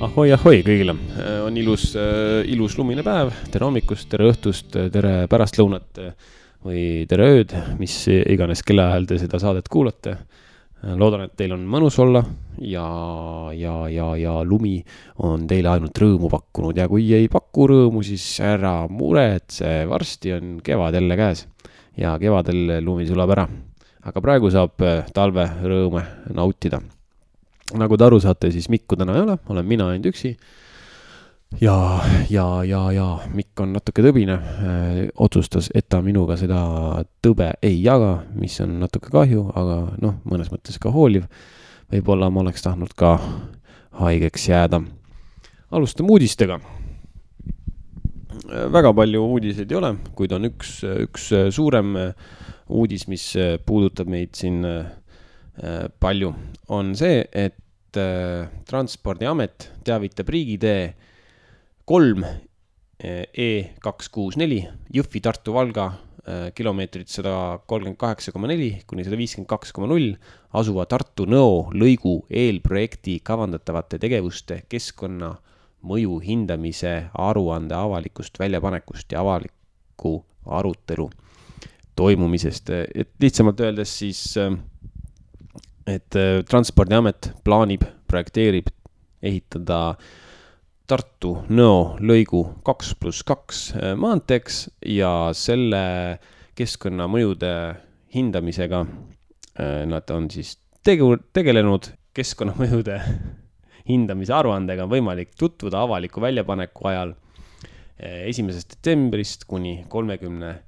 Ahoi kõigile. On ilus lumine päev. Tere hommikust, tere õhtust, tere pärastlõunat või tere ööd, mis iganes kellaajal te seda saadet kuulate. Loodan, et teil on mõnus olla ja lumi on teile ainult rõõmu pakkunud. Ja kui ei paku rõõmu, siis ära muretse, varsti on kevad jälle käes ja kevadel lumi sulab ära. Aga praegu saab talve rõõme nautida. Nagu te aru saate, siis Mikku täna ei ole, olen mina ainult üksi ja Mikk on natuke tõbine, otsustas, et ta minuga seda tõbe ei jaga, mis on natuke kahju, aga mõnes mõttes ka hooliv. Võib-olla ma oleks tahtnud ka haigeks jääda. Alustame uudistega. Väga palju uudiseid ei ole, kuid on üks suurem uudis, mis puudutab meid siin palju, on see, et Transpordiamet teavitab riigitee 3 E264 Jõhvi Tartu Valga kilomeetrit 138,4 kuni 152,0 asuva Tartu Nõo lõigu eelprojekti kavandatavate tegevuste keskkonna mõju hindamise aruande avalikust väljapanekust ja avaliku arutelu toimumisest. Et lihtsamalt öeldes siis et Transpordiamet plaanib, projekteerib ehitada Tartu Nõo lõigu 2+2 maanteeks ja selle keskkonnamõjude hindamisega nad on siis tegelenud. Keskkonnamõjude hindamise aruandega on võimalik tutvuda avaliku väljapaneku ajal 1. detsembrist kuni 31.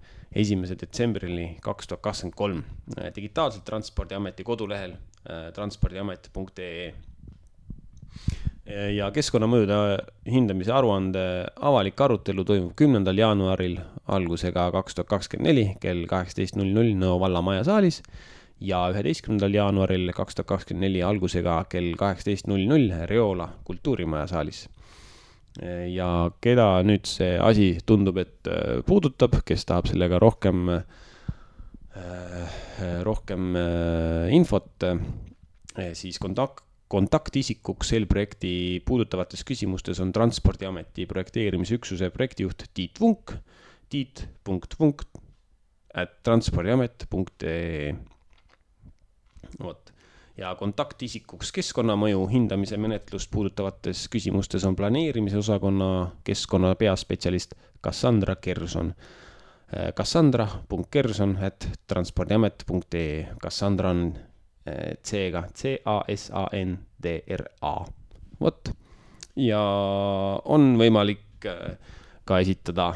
detsembrini 2023 digitaalselt Transpordiameti kodulehel transpordiamet.ee. Ja keskkonnamõjude hindamise aruande avalik arutelu toimub 10. jaanuaril algusega 2024 kell 18.00 Nõo vallamaja saalis ja 11. jaanuaril 2024 algusega kell 18.00 Reola kultuurimaja saalis. Ja keda nüüd see asi tundub, et puudutab, kes tahab sellega rohkem infot, siis kontaktisikuks eelprojekti puudutavates küsimustes on Transpordiameti projekteerimisüksuse projektijuht Tiit Vunk, tiit.vunk@transpordiamet.ee. Ja kontaktisikuks keskkonnamõju hindamise menetlust puudutavates küsimustes on planeerimise osakonna keskkonna peaspetsialist Cassandra Kerson. Cassandra.kerson@transpordiamet.ee. Cassandra on C-ga, C-A-S-A-N-D-R-A. Ja on võimalik ka esitada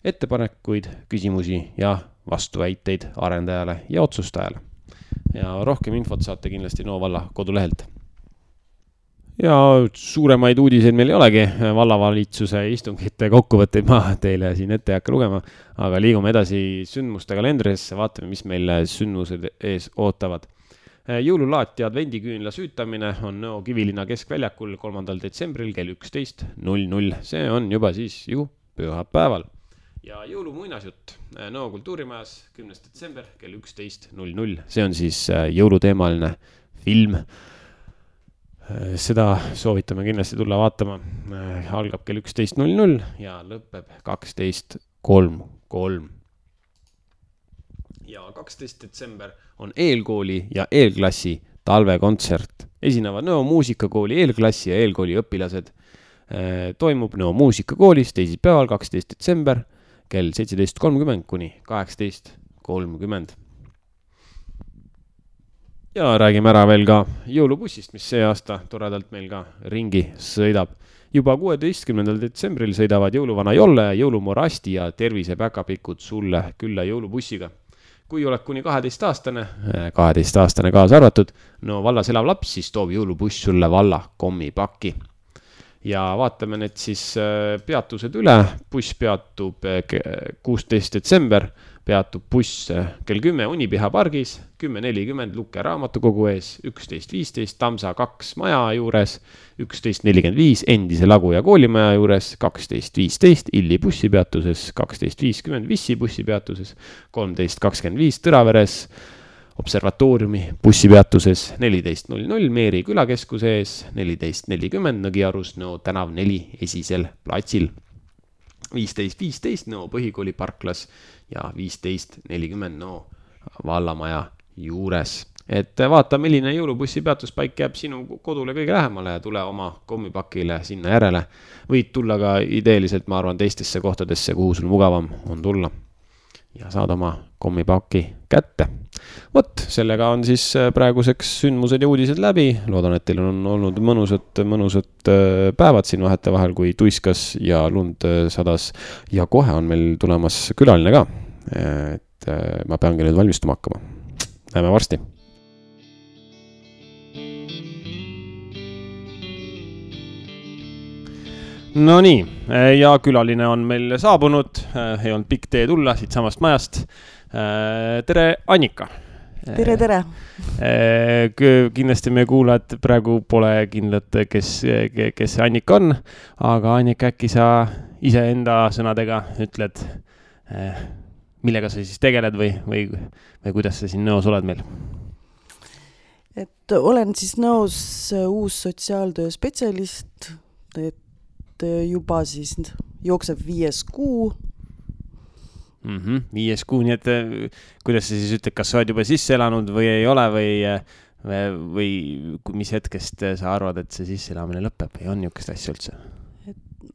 ettepanekuid, küsimusi ja vastuväiteid arendajale ja otsustajale. Ja rohkem infot saate kindlasti Nõo valla kodulehelt. Ja suuremaid uudiseid meil ei olegi, vallavalitsuse istungite kokkuvõtteid ma teile siin ette ei hakka lugema, aga liigume edasi sündmuste kalendrisse, vaatame, mis meil sündmused ees ootavad. Jõululaat ja advendiküünla süütamine on Nõo Kivilinna keskväljakul 3. detsembril kell 11.00. See on juba siis ju pühapäeval. Ja jõulumuinasjutt Nõo kultuurimajas 10. detsember kell 11.00. See on siis jõuluteemaline film. Seda soovitame kindlasti tulla vaatama. Algab kell 11.00 ja lõpeb 12.33. Ja 12. detsember on eelkooli ja eelklassi talvekontsert. Esinevad Nõo muusikakooli eelklassi ja eelkooli õpilased. Toimub Nõo muusikakoolis teisipäeval 12. detsember kell 17.30 kuni 18.30. Ja räägime ära veel ka jõulubussist, mis see aasta toredalt meil ka ringi sõidab. Juba 16. detsembril sõidavad jõuluvana Jolle, jõulumorasti ja tervisepäkapikud sulle külla jõulubussiga. Kui oled kuni 12-aastane kaasa arvatud, Nõo vallas elav laps, siis toob jõulubuss sulle valla kommipaki. Ja vaatame need siis peatused üle. Buss peatub 16. detsember, peatub buss kell 10 Unipiha pargis, 10.40 Lukke raamatukogu ees, 11.15 Tamsa 2 maja juures, 11.45 Endise lagu ja koolimaja juures, 12.15 Illi bussipeatuses, 12.50 Vissi bussipeatuses, 13.25 Tõraveres, observatooriumi bussipeatuses 14.00 Meeri külakeskuse ees, 14.40 Nõgiarus Nõo tänav 4 esisel platsil, 15.15 Nõo põhikooli parklas ja 15.40 Nõo vallamaja juures. Et vaata, milline jõulubussi peatuspaik jääb sinu kodule kõige lähemale ja tule oma kommipakile sinna järele. Võid tulla ka ideeliselt, ma arvan, teistesse kohtadesse, kuhu sul mugavam on tulla ja saada oma kommipaki kätte. Vot, sellega on siis praeguseks sündmused ja uudised läbi. Loodan, et teil on olnud mõnusad päevad siin vahete vahel, kui tuiskas ja lund sadas ja kohe on meil tulemas külaline ka. Et ma peangi nüüd valmistuma hakkama. Näeme varsti. No nii, ja külaline on meil saabunud, ei olnud pikk tee tulla siit samast majast. Tere, Annika! Tere! Kindlasti me kuulad, praegu pole kindlalt, kes see Annika on, aga Annika, äkki sa ise enda sõnadega ütled, millega sa siis tegeled või kuidas sa siin Nõos oled meil? Et olen siis Nõos uus sotsiaaltöö spetsialist, et juba siis jookseb 5 kuu. 5 kuu, nii et kuidas sa siis ütled, kas sa oled juba sisse elanud või ei ole või mis hetkest sa arvad, et see sisseelamine lõpeb või on niisugust asja üldse?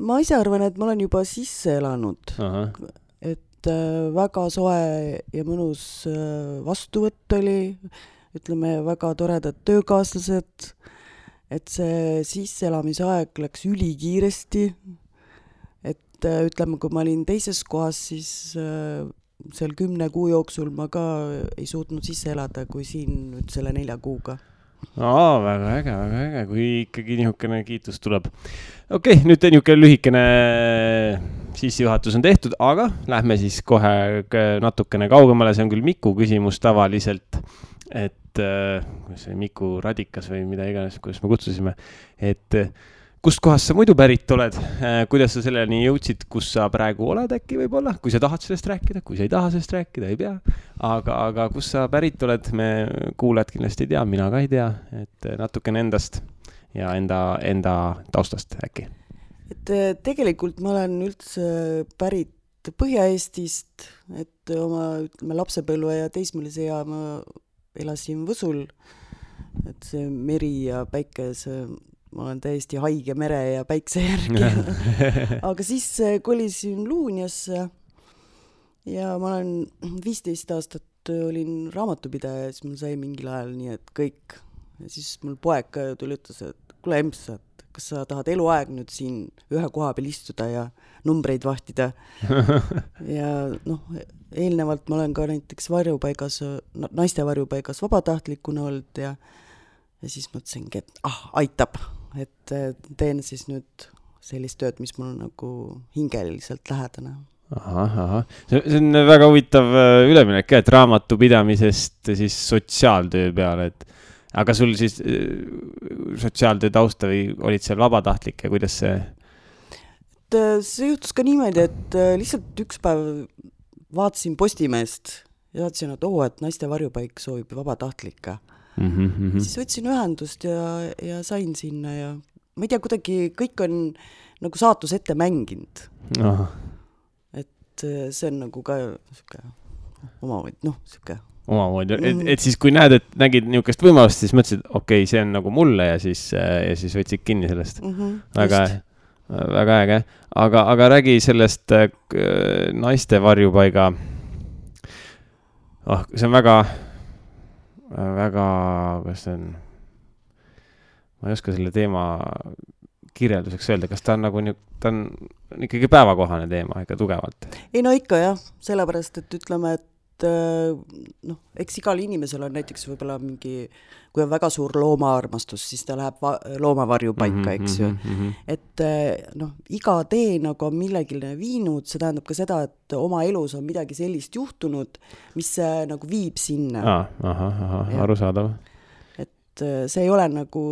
Ma ise arvan, et ma olen juba sisse elanud. Et väga soe ja mõnus vastuvõtt oli, ütleme väga toredad töökaaslased, et see sisseelamise aeg läks ülikiiresti, et ütleme, kui ma olin teises kohas, siis seal 10 kuu jooksul ma ka ei suutnud sisse elada, kui siin nüüd selle 4 kuuga. Väga äge, kui ikkagi niisugune kiitus tuleb. Okei, nüüd niisugune lühikene sissejuhatus on tehtud, aga lähme siis kohe natukene kaugemale, see on küll Miku küsimus tavaliselt, et see Miku Radikas või mida iganes, kuidas me kutsusime, et kust kohast sa muidu pärit oled, kuidas sa selleni jõudsid, kus sa praegu oled äkki võib-olla, kui sa tahad sellest rääkida, kui sa ei taha sellest rääkida, ei pea, aga kus sa pärit oled, me kuulajad kindlasti ei tea, mina ka ei tea, et natukene endast ja enda taustast äkki. Et tegelikult ma olen üldse pärit Põhja-Eestist, et oma lapsepõlve ja teismelise ja ma elasin Võsul, et see meri ja päike, ma olen täiesti haige mere ja päikse järgi. Aga siis kolisin Luunjasse ja ma olen 15 aastat olin raamatupidaja ja siis mul sai mingil ajal nii, et kõik. Ja siis mul poeg tuli ütles, et kuule Emps, kas sa tahad eluaeg nüüd siin ühe koha peal istuda ja numbreid vahtida. Ja eelnevalt ma olen ka näiteks varjupaigas, naiste varjupaigas vabatahtlikuna olnud ja siis mõtlesingi, et aitab, et teen siis nüüd sellist tööd, mis mul nagu hingeliselt lähedane. See on väga huvitav üleminek, et raamatupidamisest siis sotsiaaltöö peale, aga sul siis sotsiaaltöö tausta või olid seal vabatahtlik ja kuidas see? See juhtus ka niimoodi, et lihtsalt üks päev vaatasin Postimeest ja vaatasin, et naiste varjupaik soovib vabatahtlikka. Siis võtsin ühendust ja sain sinna ja ma ei tea, kuidagi kõik on nagu saatus ette mänginud. Et see on nagu ka omamoodi, et siis kui näed, et nägid niisugust võimalust, siis mõtlesid, okei, see on nagu mulle ja siis võtsid kinni sellest. Väga äge. Aga räägi sellest naiste varjupaiga. See on väga, kuidas see on? Ma ei oska selle teema kirjelduseks öelda, kas ta on nagu ta on ikkagi päevakohane teema, ikka tugevalt? Ei, no ikka jah, sellepärast, et ütleme, et eks igal inimesel on näiteks võib-olla mingi, kui on väga suur loomaarmastus, siis ta läheb loomavarjupaika, eks ju. Et iga tee nagu on millegile viinud, see tähendab ka seda, et oma elus on midagi sellist juhtunud, mis nagu viib sinna. Arusaadav. Et see ei ole nagu,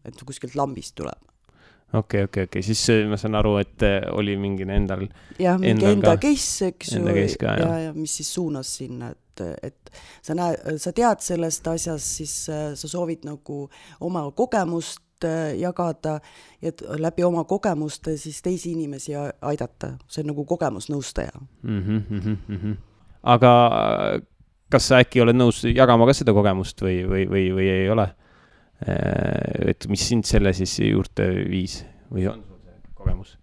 et kuskilt lambist tuleb. okei, siis ma saan aru, et oli mingi endal jah, mingi enda case, eks ju, case ka, ja mis siis suunas sinna, et sa tead sellest asjast, siis sa soovid nagu oma kogemust jagada, et läbi oma kogemuste siis teisi inimesi aidata. See on nagu kogemusnõustaja. Aga kas sa äkki oled nõus jagama ka seda kogemust või ei ole? Et mis sind selle siis juurde viis või on sul see kogemus?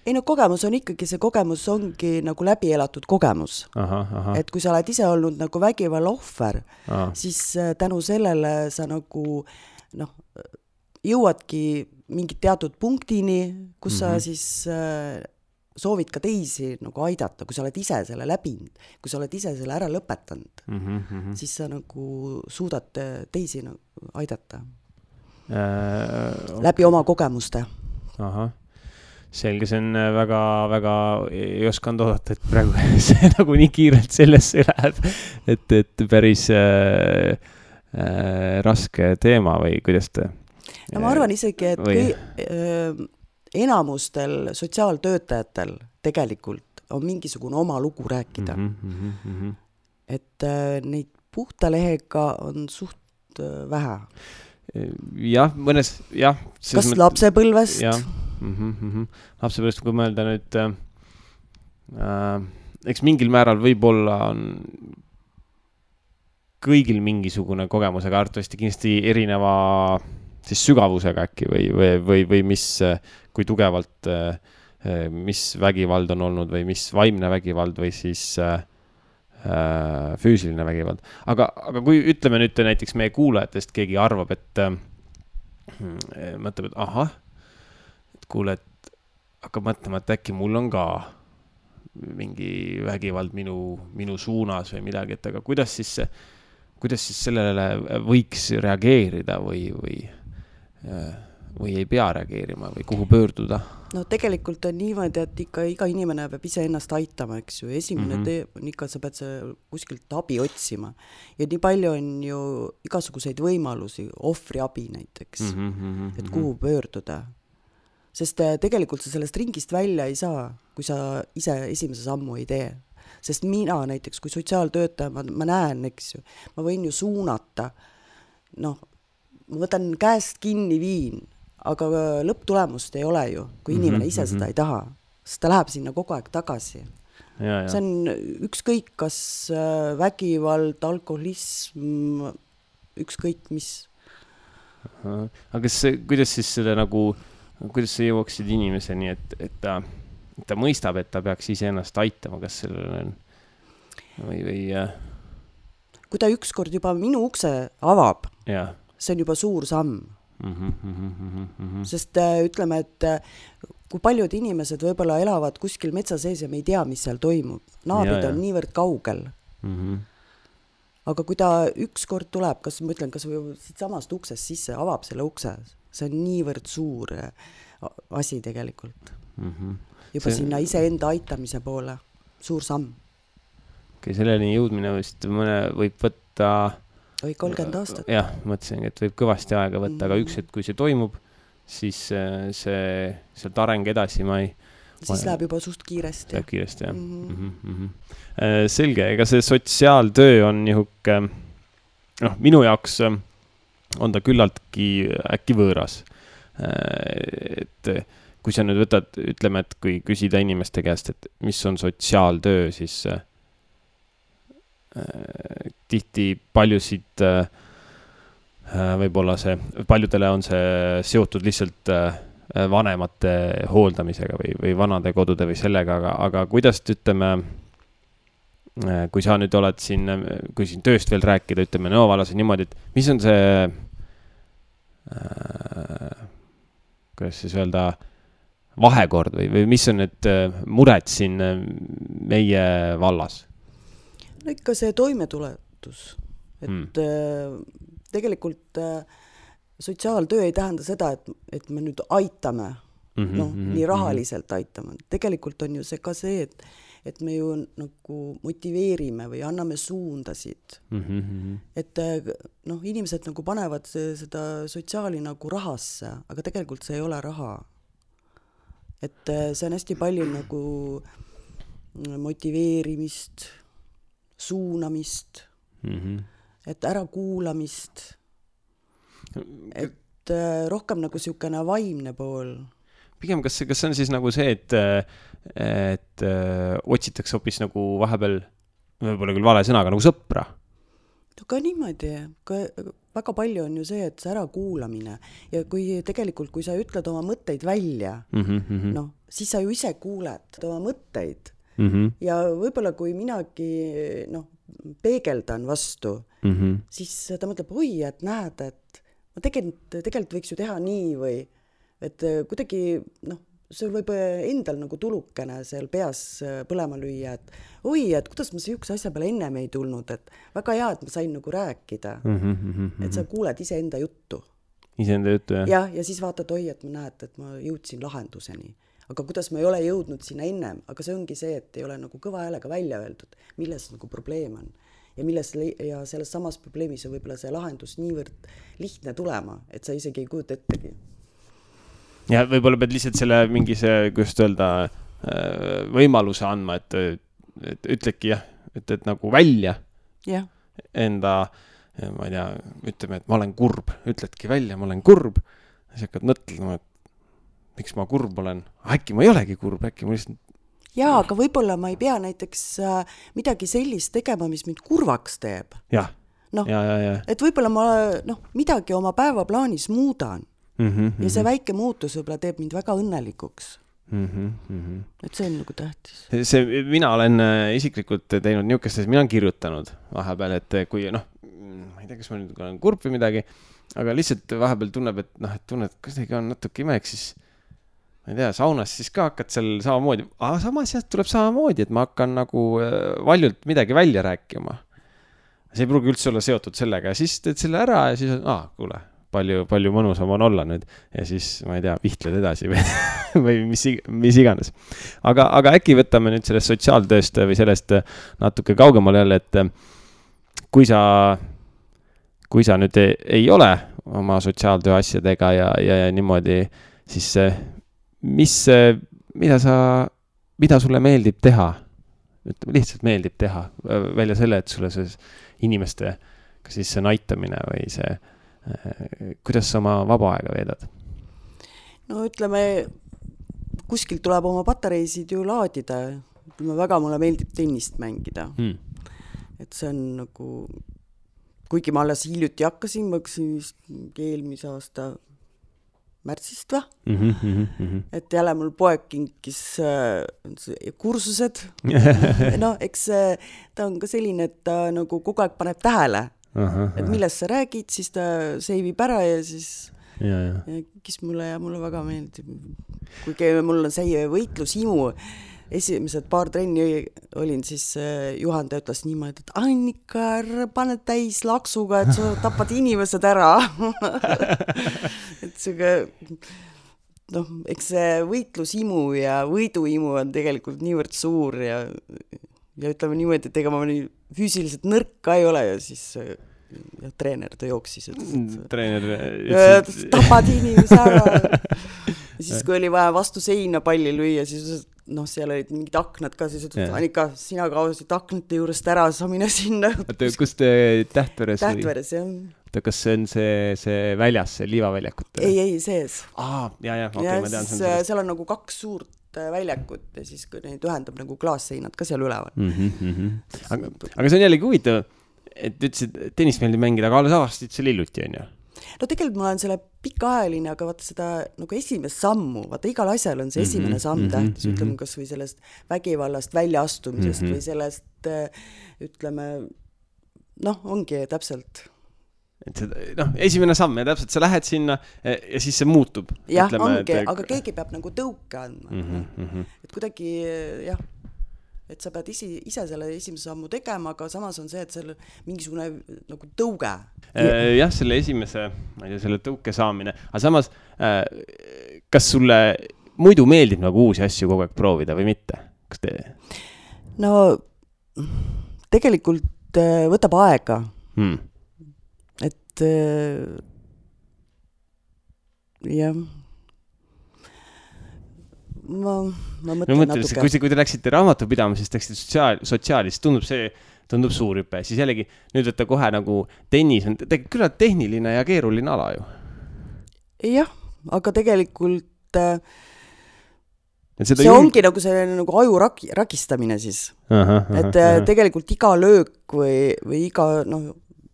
Ei no kogemus on ikkagi, see kogemus ongi nagu läbi elatud kogemus. Et kui sa oled ise olnud nagu vägivalla ohver, siis tänu sellele sa nagu jõuadki mingit teatud punktini, kus sa siis soovid ka teisi nagu aidata, kui sa oled ise selle läbinud, kui sa oled ise selle ära lõpetanud, siis sa nagu suudad teisi aidata läbi oma kogemuste. Selge, see on väga ei osanud oodata, et praegu see nagu nii kiirelt sellesse läheb, et päris raske teema või kuidas te... No ma arvan isegi, et enamustel sotsiaaltöötajatel tegelikult on mingisugune oma lugu rääkida. Et neid puhta lehega on suht vähe. Jah, mõnes, jah. Kas lapsepõlvest? Jah, lapsepõlvest, kui mõelda nüüd, eks mingil määral võib-olla on kõigil mingisugune kogemus, aga arvatavasti kindlasti erineva siis sügavusega äkki või mis, kui tugevalt, mis vägivald on olnud või mis vaimne vägivald või siis füüsiline vägivald. Aga kui ütleme nüüd näiteks meie kuulajatest keegi arvab, et mõtleb, et et kuule, et hakkab mõtlema, et äkki mul on ka mingi vägivald minu suunas või midagi, et aga kuidas siis sellele võiks reageerida või ei pea reageerima või kuhu pöörduda? No tegelikult on niimoodi, et ikka iga inimene peab ise ennast aitama, eks ju. Esimene tee on ikka, sa pead kuskilt abi otsima. Ja nii palju on ju igasuguseid võimalusi, ohvri abi näiteks, et kuhu pöörduda. Sest tegelikult sa sellest ringist välja ei saa, kui sa ise esimese sammu ei tee. Sest mina näiteks, kui sotsiaaltöötaja, ma näen, eks ju, ma võin ju suunata, ma võtan käest kinni viin, aga lõpptulemust ei ole ju, kui inimene ise seda ei taha, sest ta läheb sinna kogu aeg tagasi. See on ükskõik, kas vägivald, alkoholism, ükskõik mis. Aga kuidas siis selle nagu, kuidas sa jõuaksid inimeseni, et ta mõistab, et ta peaks ise ennast aitama, kas sellel on või kui ta ükskord juba minu ukse avab, ja. See on juba suur samm. Sest ütleme, et kui paljud inimesed võib-olla elavad kuskil metsa sees ja me ei tea, mis seal toimub. Naabrid on niivõrd kaugel. Aga kui ta ükskord tuleb, kas või siit samast uksest sisse avab selle ukse, see on niivõrd suur asi tegelikult. Juba sinna iseenda aitamise poole. Suur samm. Selleni jõudmine vist võib võtta 30 aastat. Jah, mõtlesin, et võib kõvasti aega võtta, aga üks hetk, kui see toimub, siis sealt areng edasi siis läheb juba suht kiiresti. Läheb kiiresti, jah. Selge, ega see sotsiaaltöö on nihuke, minu jaoks on ta küllaltki äkki võõras. Et kui sa nüüd võtad, ütleme, et kui küsida inimeste käest, et mis on sotsiaaltöö, siis tihti paljusid võib-olla paljudele on see seotud lihtsalt vanemate hooldamisega või vanade kodude või sellega, aga kuidas ütleme, kui sa nüüd oled siin, kui siin tööst veel rääkida, ütleme Nõo vallas niimoodi, et mis on see kuidas siis öelda vahekord või mis on need mured siin meie vallas? No ikka see toimetuletus, et tegelikult sotsiaaltöö ei tähenda seda, et me nüüd aitame, nii rahaliselt aitame. Tegelikult on ju see ka see, et me ju nagu motiveerime või anname suundasid. Et inimesed nagu panevad seda sotsiaali nagu rahasse, aga tegelikult see ei ole raha. et see on hästi palju nagu motiveerimist, suunamist, et ära kuulamist, et rohkem nagu siukene vaimne pool. Pigem kas see on siis nagu see, et otsitakse hoopis nagu vahepeal, võib-olla küll vale sõnaga, nagu sõpra? Ka niimoodi, väga palju on ju see, et see ära kuulamine ja kui tegelikult, kui sa ütled oma mõtteid välja, noh, siis sa ju ise kuuled oma mõtteid ja võib-olla kui minagi peegeldan vastu, siis ta mõtleb, oi, et näed, et ma tegelikult võiks ju teha nii või et kuidagi, sul võib endal nagu tulukene seal peas põlema lüüa, et oi, et kuidas ma sihukese asja peale ennem ei tulnud, et väga hea, et ma sain nagu rääkida, et sa kuuled iseenda juttu. Iseenda juttu, jah. Ja siis vaatad, oi, et ma näed, et ma jõudsin lahenduseni. Aga kuidas ma ei ole jõudnud sinna ennem, aga see ongi see, et ei ole nagu kõva häälega välja öeldud, milles nagu probleem on. Ja selles samas probleemis on võib-olla see lahendus niivõrd lihtne tulema, et sa isegi ei kujuta ettegi. Ja võib-olla pead lihtsalt selle mingi see, kuidas öelda, võimaluse andma, et ütledki jah, et nagu välja enda, ma ei tea, ütleme, et ma olen kurb, ütledki välja, ma olen kurb, siis hakkad mõtlema, et miks ma kurb olen, äkki ma ei olegi kurb, äkki ma lihtsalt... Jaa, aga võib-olla ma ei pea näiteks midagi sellist tegema, mis mind kurvaks teeb. Jah, et võib-olla ma midagi oma päevaplaanis muudan. Ja see väike muutus võib-olla teeb mind väga õnnelikuks. Et see on nagu tähtis. Mina olen isiklikult teinud niisugustes, mina olen kirjutanud vahepeal, et kui, ma ei tea, kas ma nüüd olen kurb või midagi, aga lihtsalt vahepeal tunneb, et tunned, kuidagi on natuke imelik, siis ma ei tea, saunas siis ka hakkad seal samamoodi, aga samas jah, tuleb samamoodi, et ma hakkan nagu valjult midagi välja rääkima. See ei pruugi üldse olla seotud sellega ja siis teed selle ära ja siis kuule, palju mõnusam on olla nüüd ja siis, ma ei tea, vihtled edasi või mis iganes. Aga äkki võtame nüüd sellest sotsiaaltööst või sellest natuke kaugemal jälle, et kui sa nüüd ei ole oma sotsiaaltöö asjadega ja niimoodi, siis mida sulle meeldib teha? Lihtsalt meeldib teha välja selle, et sulle see inimeste kas siis see naitamine või see kuidas sa oma vaba aega veedad? No ütleme, kuskilt tuleb oma patareisid ju laadida. Ütleme, väga mulle meeldib tennist mängida. Et see on nagu, kuigi ma alles hiljuti hakkasin, ma hakkasin vist eelmise aasta märtsist et jälle mul poeg kinkis kursused. Eks ta on ka selline, et ta nagu kogu aeg paneb tähele. Et millest sa räägid, siis ta seivib ära ja siis kis mulle väga meeldib. Kuigi mul on see võitlusimu, esimesed paar trenni olin, siis juhendaja ütles niimoodi, et Annika, pane täis laksuga, et sa tapad inimesed ära. Et see eks see võitlusimu ja võiduimu on tegelikult niivõrd suur ja ütleme niimoodi, et ega ma füüsiliselt nõrk ka ei ole ja siis treener ta jooksis. Tapad inimese ära. Ja siis kui oli vaja vastu seina palli lüüa, siis seal olid mingid aknad ka, siis ütles, Annika, sina kaosid aknate juurest ära, sa mine sinna. Kus te Tähtveres? Tähtveres, jah. Kas see on see väljas, see liivaväljakut? Ei, sees. Ja, okei, ma tean. Seal on nagu 2 suurt väljakut ja siis kui neid ühendab nagu klaasseinad ka seal üleval. Aga see on jällegi huvitav, et ütlesid, tennis meeldib mängida, aga alles avastasid selle hiljuti, on ju? No tegelikult ma olen selle pikaajaline, aga vaata seda nagu esimest sammu, vaata igal asjal on see esimene samm tähtis, ütleme kas või sellest vägivallast väljaastumisest või sellest, ütleme, ongi täpselt. Et esimene samm ja täpselt sa lähed sinna ja siis see muutub. Jah, ongi, aga keegi peab nagu tõuke andma. Et kuidagi, et sa pead ise selle esimese sammu tegema, aga samas on see, et seal mingisugune nagu tõuge. Jah, selle esimese, ma ei tea, selle tõuke saamine. Aga samas, kas sulle muidu meeldib nagu uusi asju kogu aeg proovida või mitte? Kas te... No, tegelikult võtab aega. Jah. ma no mõtlen mõtlen, natuke. kui te läksite raamatupidamisest, läksite sotsiaalis, tundub suur hüpe, siis jällegi nüüd võtta kohe nagu tennis on küllalt tehniline ja keeruline ala ju. Jah, aga tegelikult See ongi nagu see nagu aju rakistamine siis. Et tegelikult iga löök või iga,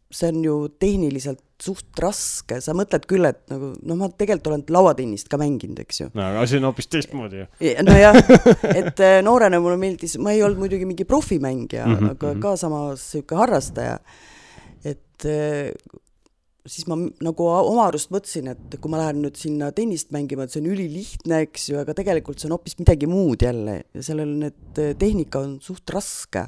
see on ju tehniliselt suht raske. Sa mõtled küll, et nagu, ma tegelikult olen lauatennist ka mänginud, eks ju. No, aga see on hoopis teistmoodi ju. No jah, et noorena mulle meeldis, ma ei olnud muidugi mingi profimängija, aga ka samas selline harrastaja. Et siis ma nagu oma arust mõtlesin, et kui ma lähen nüüd sinna tennist mängima, et see on ülilihtne, eks ju, aga tegelikult see on hoopis midagi muud jälle ja sellel need tehnika on suht raske.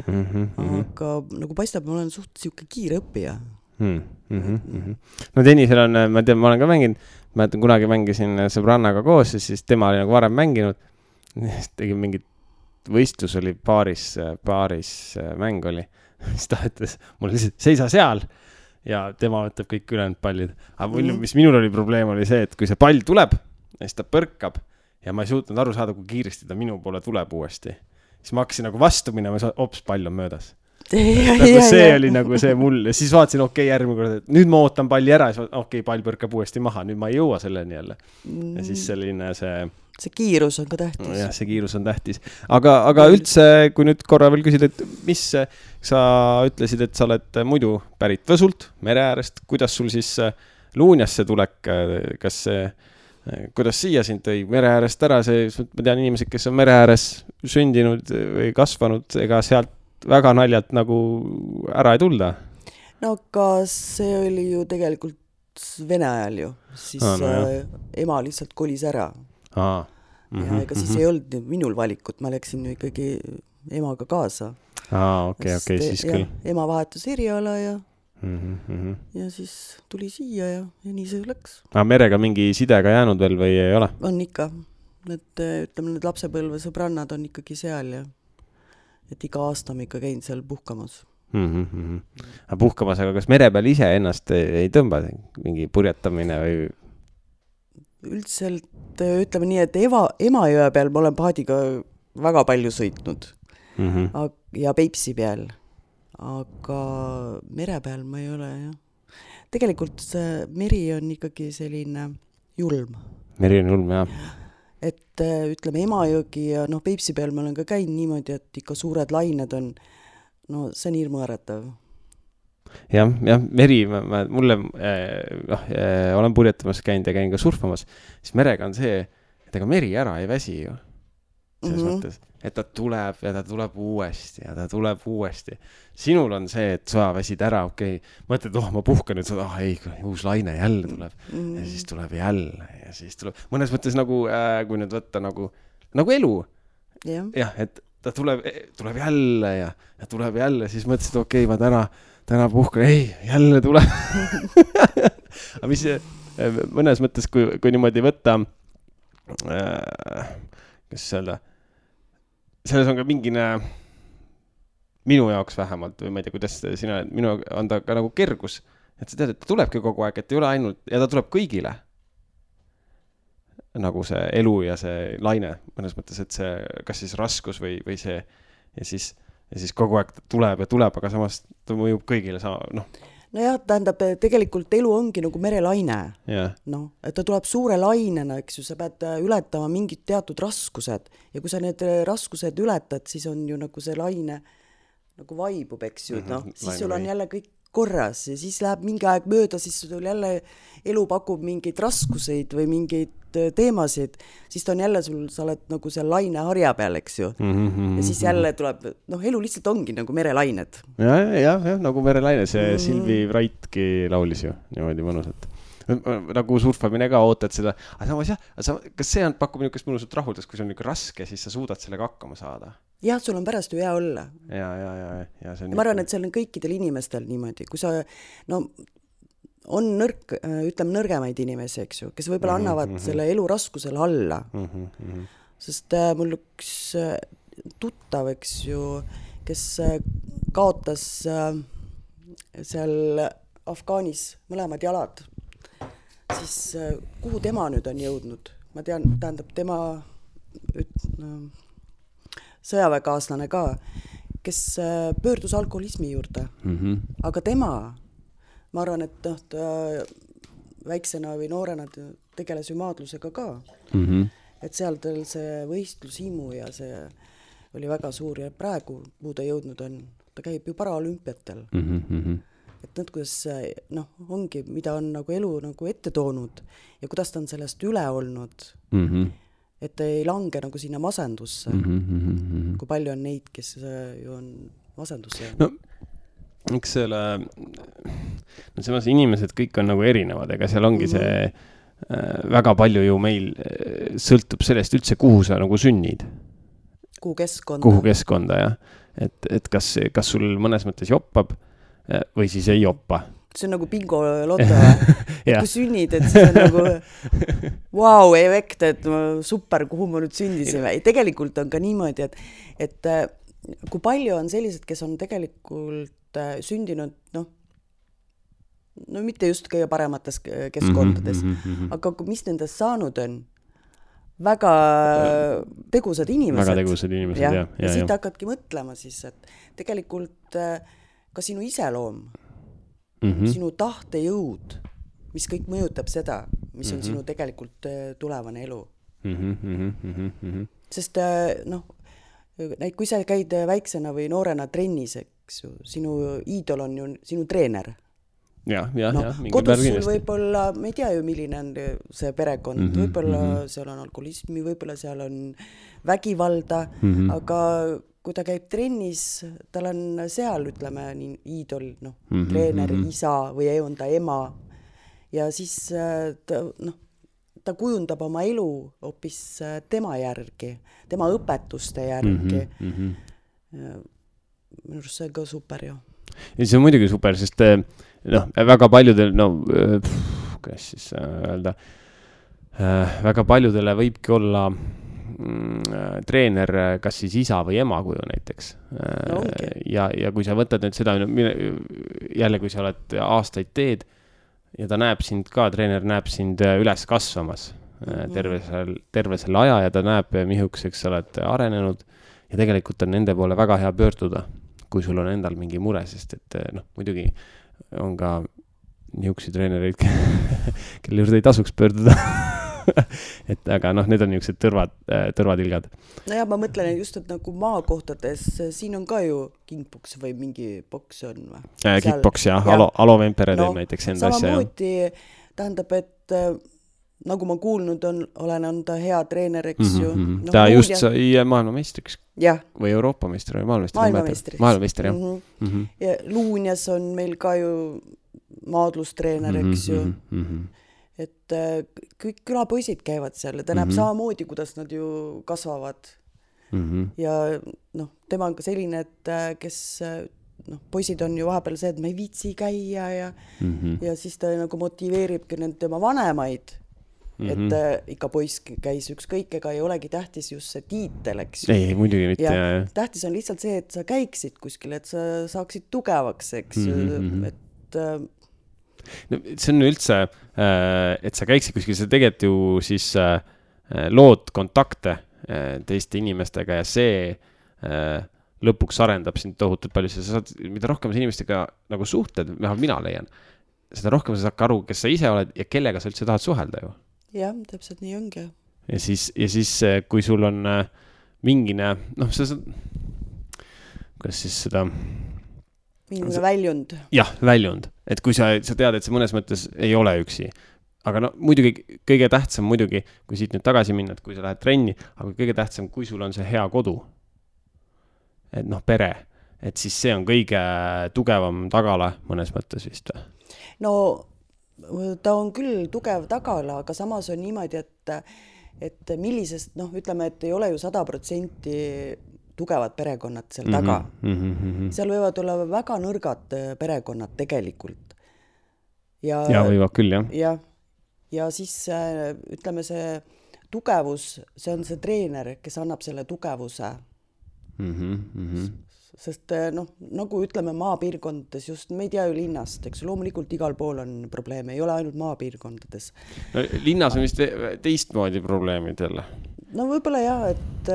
Aga nagu paistab, ma olen suht siuke kiire õppija. No tennisel on, ma tean, ma olen ka mänginud, ma kunagi mängisin sõbrannaga koos, siis tema oli nagu varem mänginud, tegin mingit võistlus oli paaris mäng oli, siis ta ütles, mul lihtsalt seisa seal ja tema võtab kõik ülejäänud pallid. Aga mis minul oli probleem oli see, et kui see pall tuleb, siis ta põrkab ja ma ei suutnud aru saada, kui kiiresti ta minu poole tuleb uuesti. Siis ma hakkasin nagu vastu minema, hops, pall on möödas. See oli nagu see mul ja siis vaatasin, järgmine kord, et nüüd ma ootan palli ära ja siis pall põrkab uuesti maha, nüüd ma ei jõua selleni jälle. Ja siis selline see kiirus on ka tähtis. Jah, see kiirus on tähtis. Aga üldse, kui nüüd korra veel küsid, et mis sa ütlesid, et sa oled muidu pärit Võsult, mere äärest, kuidas sul siis Luunjasse tulek, kuidas siia sind tõi mere äärest ära, ma tean inimesed, kes on mere ääres sündinud või kasvanud, ega sealt väga naljalt nagu ära ei tulda. No aga see oli ju tegelikult Vene ajal ju, siis ema lihtsalt kolis ära. Ja ega siis ei olnud minul valikut, ma läksin ju ikkagi emaga kaasa. Siis küll. Ema vahetus eriala ja siis tuli siia ja nii see läks. Merega mingi sidega jäänud veel või ei ole? On ikka. Ütleme, need lapsepõlve sõbrannad on ikkagi seal ja et iga aasta ma ikka käin seal puhkamas. Puhkamas, aga kas mere peal ise ennast ei tõmba mingi purjetamine või? Üldiselt ütleme nii, et Emajõe peal ma olen paadiga väga palju sõitnud ja Peipsi peal, aga mere peal ma ei ole. Ja. Tegelikult see meri on ikkagi selline julm. Meri on julm, jah. Et ütleme Emajõgi ja Peipsi peal ma olen ka käinud niimoodi, et ikka suured lained on, see on hirmuäratav. Jah, meri, mulle olen purjetamas käinud ja käin ka surfamas, siis merega on see, et ega meri ära ei väsi ju. Selles mõttes, et ta tuleb ja ta tuleb uuesti ja ta tuleb uuesti. Sinul on see, et sa väsid ära, mõtled, ma puhkan nüüd, uus laine jälle tuleb ja siis tuleb jälle ja siis tuleb. Mõnes mõttes nagu, kui nüüd võtta nagu elu. Jah, et ta tuleb jälle ja tuleb jälle, siis mõtlesid, ma täna puhkan, jälle tuleb. Aga mis mõnes mõttes, kui niimoodi võtta, kas öelda, selles on ka mingine minu jaoks vähemalt, või ma ei tea, kuidas sina, minu on ta ka nagu kergus, et sa tead, et ta tulebki kogu aeg, et ei ole ainult, ja ta tuleb kõigile. Nagu see elu ja see laine, mõnes mõttes, et see, kas siis raskus või see, ja siis kogu aeg tuleb ja tuleb, aga samas ta mõjub kõigile sama, Nojah, tähendab, tegelikult elu ongi nagu merelaine. Et ta tuleb suure lainena, eks ju, sa pead ületama mingid teatud raskused ja kui sa need raskused ületad, siis on ju nagu see laine nagu vaibub, eks ju, siis sul on jälle kõik korras ja siis läheb mingi aeg mööda, siis sul jälle elu pakub mingeid raskuseid või mingeid teemasid, siis ta on jälle sa oled nagu seal laine harja peal, eks ju. Ja siis jälle tuleb, elu lihtsalt ongi nagu merelained. Ja, nagu merelaine, see Silvi Vraitki laulis ju niimoodi mõnusalt. Nagu surfamine ka ootad seda, aga samas kas see pakub niisugust mõnusat rahuldust, kui see on niisugune raske, siis sa suudad sellega hakkama saada? Jah, sul on pärast ju hea olla. Ja ma arvan, et see on kõikidel inimestel niimoodi, kui sa, on ütleme nõrgemaid inimesi, eks ju, kes võib-olla annavad selle elu raskusel alla. Sest mul üks tuttav, eks ju, kes kaotas seal Afgaanis mõlemad jalad, siis kuhu tema nüüd on jõudnud? Ma tean, tähendab, tema sõjaväekaaslane ka, kes pöördus alkoholismi juurde. Aga tema, ma arvan, et ta väiksena või noorena tegeles ju maadlusega ka. Et seal tal see võistlushimu ja see oli väga suur ja praegu, kuhu ta jõudnud on, ta käib ju paraolümpiatel. Et need, kuidas ongi, mida on nagu elu nagu ette toonud ja kuidas ta on sellest üle olnud, et ta ei lange nagu sinna masendusse. Kui palju on neid, kes ju on masendusse. No, eks selle, selles inimesed kõik on nagu erinevad, ega seal ongi see väga palju ju meil sõltub sellest üldse, kuhu sa nagu sünnid. Kuhu keskkonda, jah. Et kas sul mõnes mõttes joppab või siis ei joppa. See on nagu bingo loto. Kui sünnid, et siis on nagu efekt, et super, kuhu ma nüüd sündisime. Tegelikult on ka niimoodi, et kui palju on sellised, kes on tegelikult sündinud, no mitte just kõige paremates keskkondades, aga mis nendest saanud on? Väga tegusad inimesed. Väga tegusad inimesed, jah. Ja siit hakkadki mõtlema siis, et tegelikult ka sinu iseloom, sinu tahtejõud, mis kõik mõjutab seda, mis on sinu tegelikult tulevane elu. Sest kui sa käid väiksena või noorena trennis, eks ju, sinu iidol on ju sinu treener. Kodus sul võib-olla, me ei tea ju, milline on see perekond, võib-olla seal on alkoholismi, võib-olla seal on vägivalda, aga kui ta käib trennis, tal on seal, ütleme, iidol, treener, isa või on ta ema ja siis ta kujundab oma elu hoopis tema järgi, tema õpetuste järgi. Minu arust see on ka super, ju. Ja see on muidugi super, sest väga paljudel, kuidas siis öelda, väga paljudele võibki olla treener kas siis isa või ema kuju näiteks. Ja kui sa võtad nüüd seda, jälle kui sa oled aastaid teed ja ta näeb sind ka, treener näeb sind üles kasvamas terve selle aja ja ta näeb, mihukeseks sa oled arenenud ja tegelikult on nende poole väga hea pöörduda, kui sul on endal mingi mure, sest et muidugi on ka niisuguseid treenereid, kelle juurde ei tasuks pöörduda. Aga need on niisugused tõrvatilgad. Ja ma mõtlen just, et nagu maakohtades, siin on ka ju kingboks või mingi boks on või? Kickboks ja Alo Vempere teeb näiteks enda asja. Samamoodi tähendab, et nagu ma kuulnud on ta hea treener, eks ju. Ta just sai maailmameistriks või Euroopa meister või maailmameister, jah. Ja Luunjas on meil ka ju maadlustreener, eks ju. Et kõik külapoisid käivad seal ja ta näeb samamoodi, kuidas nad ju kasvavad. Ja tema on ka selline, et kes poisid on ju vahepeal see, et ma ei viitsi käia ja siis ta nagu motiveeribki tema vanemaid. Et ikka poiss käis ükskõik, ega ei olegi tähtis just see tiitel, eks ju. Ei, muidugi mitte. Ja tähtis on lihtsalt see, et sa käiksid kuskil, et sa saaksid tugevaks, eks ju. See on üldse, et sa käiksid kuskil, sa tegelikult ju siis lood kontakte teiste inimestega ja see lõpuks arendab sind tohutult palju. Sa saad, mida rohkem sa inimestega nagu suhtled, mina leian, seda rohkem sa saad aru, kes sa ise oled ja kellega sa üldse tahad suhelda ju. Jah, täpselt nii ongi. Ja siis kui sul on mingine, sa saad, kuidas siis seda... Mingine väljund. Jah, väljund. Et kui sa tead, et see mõnes mõttes ei ole üksi. Aga muidugi kõige tähtsam muidugi, kui siit nüüd tagasi minna, et kui sa lähed trenni, aga kõige tähtsam, kui sul on see hea kodu. Et pere. Et siis see on kõige tugevam tagala mõnes mõttes vist. No ta on küll tugev tagala, aga samas on niimoodi, et millisest, ütleme, et ei ole ju 100% tugevad perekonnad seal taga. Seal võivad olla väga nõrgad perekonnad tegelikult. Ja võivad küll, jah. Ja siis ütleme see tugevus, see on see treener, kes annab selle tugevuse. Sest nagu ütleme maapiirkondades just, me ei tea ju linnast, eks loomulikult igal pool on probleeme, ei ole ainult maapiirkondades. Linnas on vist teistmoodi probleemid jälle. no võib-olla jah, et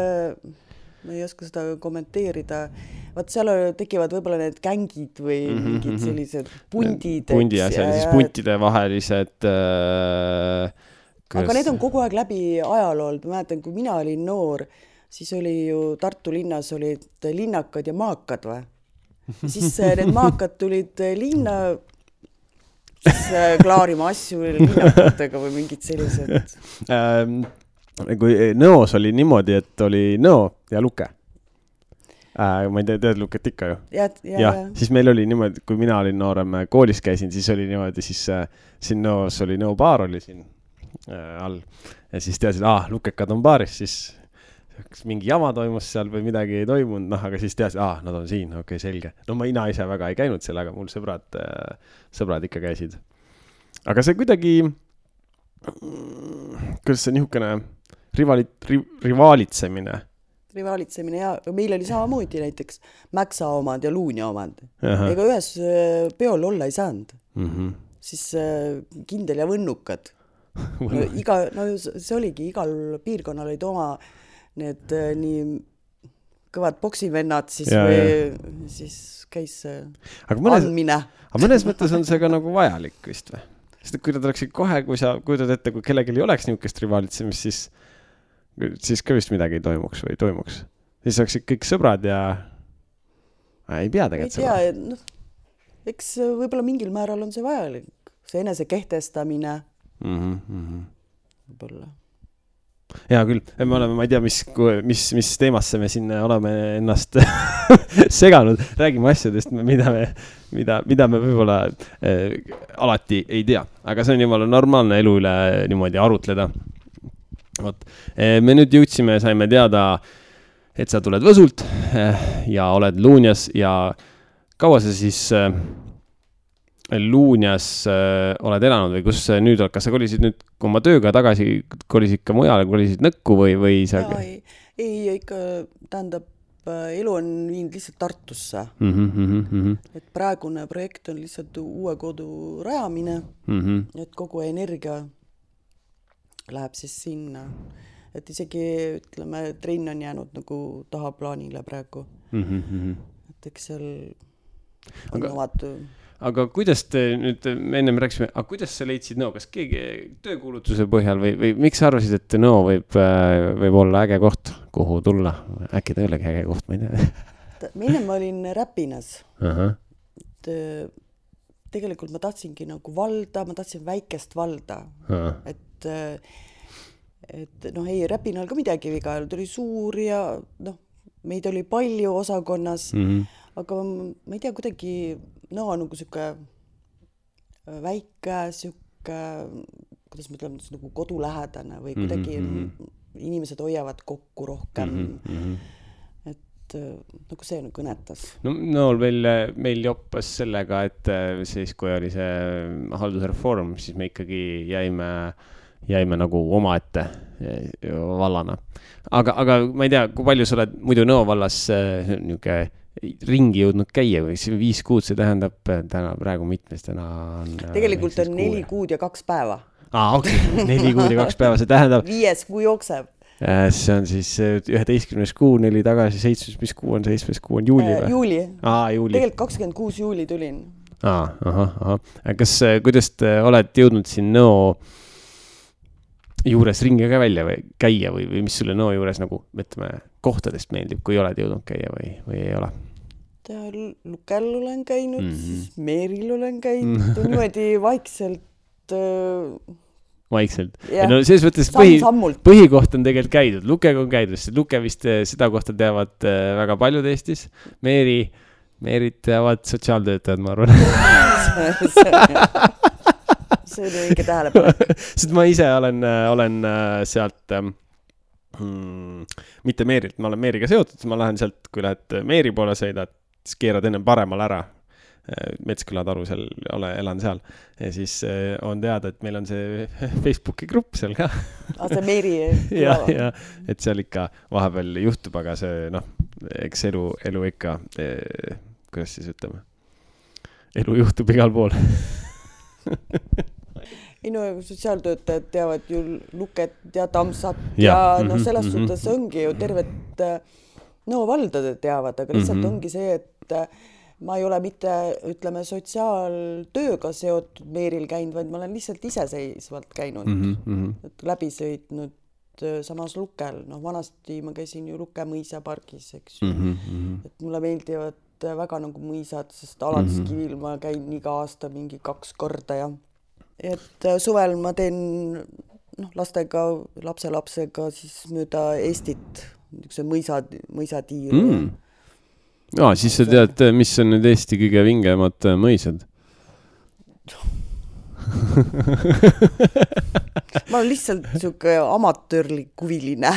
ma ei oska seda kommenteerida. Vaat seal tekivad võib-olla need gängid või mingid sellised pundid. Pundi asjad, siis puntide vahelised aga need on kogu aeg läbi ajalool. Ma mäletan, kui mina olin noor, siis oli ju Tartu linnas olid linnakad ja maakad või? Ja siis need maakad tulid linna klaarima asju linnakatega või mingid sellised. Kui Nõos oli niimoodi, et oli Nõo ja Luke. Ma ei tead Luket ikka ju. Ja, siis meil oli niimoodi, kui mina olin noorem koolis käisin, siis oli niimoodi, siis siin Nõos oli Nõo baar oli siin all ja siis teadsid, Lukekad on baaris, siis mingi jama toimus seal või midagi ei toimunud, aga siis teadsid, nad on siin, okei, selge. No ma ina ise väga ei käinud seal, aga mul sõbrad ikka käisid. Aga see kuidagi, kuidas see nihukene rivaalitsemine? Rivaalitsemine ja meil oli samamoodi näiteks Mäksa omad ja Luunja omad. Ega ühes peol olla ei saanud. Siis Kindel ja Võnnukad. See oligi, igal piirkonnal olid oma need nii kõvad boksivennad siis või siis käis andmine. Aga mõnes mõttes on see ka nagu vajalik vist või? Sest kui nad oleksid kohe, kui sa kujutad ette, kui kellelgi ei oleks niisugust rivaalitsemist, siis ka vist midagi ei toimuks või toimuks. Siis oleksid kõik sõbrad ja ei pea tegelikult sõbrad. Eks võib-olla mingil määral on see vajalik. See enese kehtestamine võib-olla. Jaa küll, me oleme, ma ei tea, mis teemasse me siin oleme ennast seganud, räägime asjadest, mida me võib-olla alati ei tea, aga see on jumala normaalne elu üle niimoodi arutleda. Me nüüd jõudsime, saime teada, et sa tuled Võsult ja oled Luunjas ja kaua sa siis Luunjas oled elanud või kus nüüd, kas sa kolisid nüüd oma tööga tagasi, kolisid ka mujale, kolisid Nõkku või sa... Ei, ikka tähendab, elu on viinud lihtsalt Tartusse. Et praegune projekt on lihtsalt uue kodu rajamine, et kogu energia läheb siis sinna. Et isegi, ütleme, trenn on jäänud nagu taha plaanile praegu. Et eks seal on omad... Aga kuidas te nüüd, me ennem rääksime, aga kuidas sa leidsid Nõo? Kas keegi töökuulutuse põhjal või miks sa arvasid, et Nõo võib olla äge koht, kuhu tulla? Äkki ta ei olegi äge koht, ma ei tea. Ennem ma olin Räpinas. Tegelikult ma tahtsingi nagu valda, ma tahtsin väikest valda. Et ei, Räpinal ka midagi viga, tuli suur ja meid oli palju osakonnas, aga ma ei tea, kuidagi Nõo on nagu siuke väike, siuke, kuidas ma ütlen, nagu kodulähedane või kuidagi inimesed hoiavad kokku rohkem. Et nagu see nagu kõnetas. Nõol meil joppas sellega, et siis kui oli see haldusreform, siis me ikkagi jäime nagu omaette vallana. Aga ma ei tea, kui palju sa oled muidu Nõo vallas niuke ringi jõudnud käia või 5 kuud, see tähendab täna praegu mitmes täna on... Tegelikult on 4 kuud ja 2 päeva. Okei, 4 kuud ja 2 päeva, see tähendab... 5 kuu jookseb. See on siis 11. kuu, 4 tagasi, 7. Mis kuu on, 7. kuu on juuli või? Juuli. Juuli. Tegelikult 26 juuli tulin. Kas, kuidas te oled jõudnud siin Nõo juures ringi ka välja või käia või mis sulle Nõo juures nagu, ütleme, kohtadest meeldib, kui oled jõudnud käia või ei ole? Lukel olen käinud, siis Meeril olen käinud, niimoodi vaikselt. Ja no selles mõttes põhikoht on tegelikult käidud, Lukega on käidud, sest Luke vist seda kohta teavad väga paljud Eestis. Meerit teavad sotsiaaltöötajad, ma arvan. See oli õige tähelepanek. Sest ma ise olen sealt... mitte Meerilt, ma olen Meeriga seotud, ma lähen sealt, kui lähed Meeri poole sõidad, siis keerad enne paremal ära. Metsküla taru seal, elan seal. Ja siis on teada, et meil on see Facebooki grupp seal ka. See Meeri. ja, et seal ikka vahepeal juhtub, aga see, eks elu ikka, kuidas siis ütleme, elu juhtub igal pool. ei no sotsiaaltöötajad teavad ju Luket ja Tamsat ja noh, selles suhtes ongi ju tervet valdade teavad, aga lihtsalt ongi see, et ma ei ole mitte, ütleme, sotsiaaltööga seotud Meeril käinud, vaid ma olen lihtsalt iseseisvalt käinud, et läbi sõitnud samas Lukel. Noh, vanasti ma käisin ju Luke mõisapargis, eks ju. Et mulle meeldivad väga nagu mõisad, sest Alatskivil ma käin iga aasta mingi 2 korda ja et suvel ma teen lastega, lapselapsega siis mööda Eestit mõisatiiru. Siis sa tead, mis on nüüd Eesti kõige vingemad mõisad? Ma olen lihtsalt siuke amatöörlik huviline.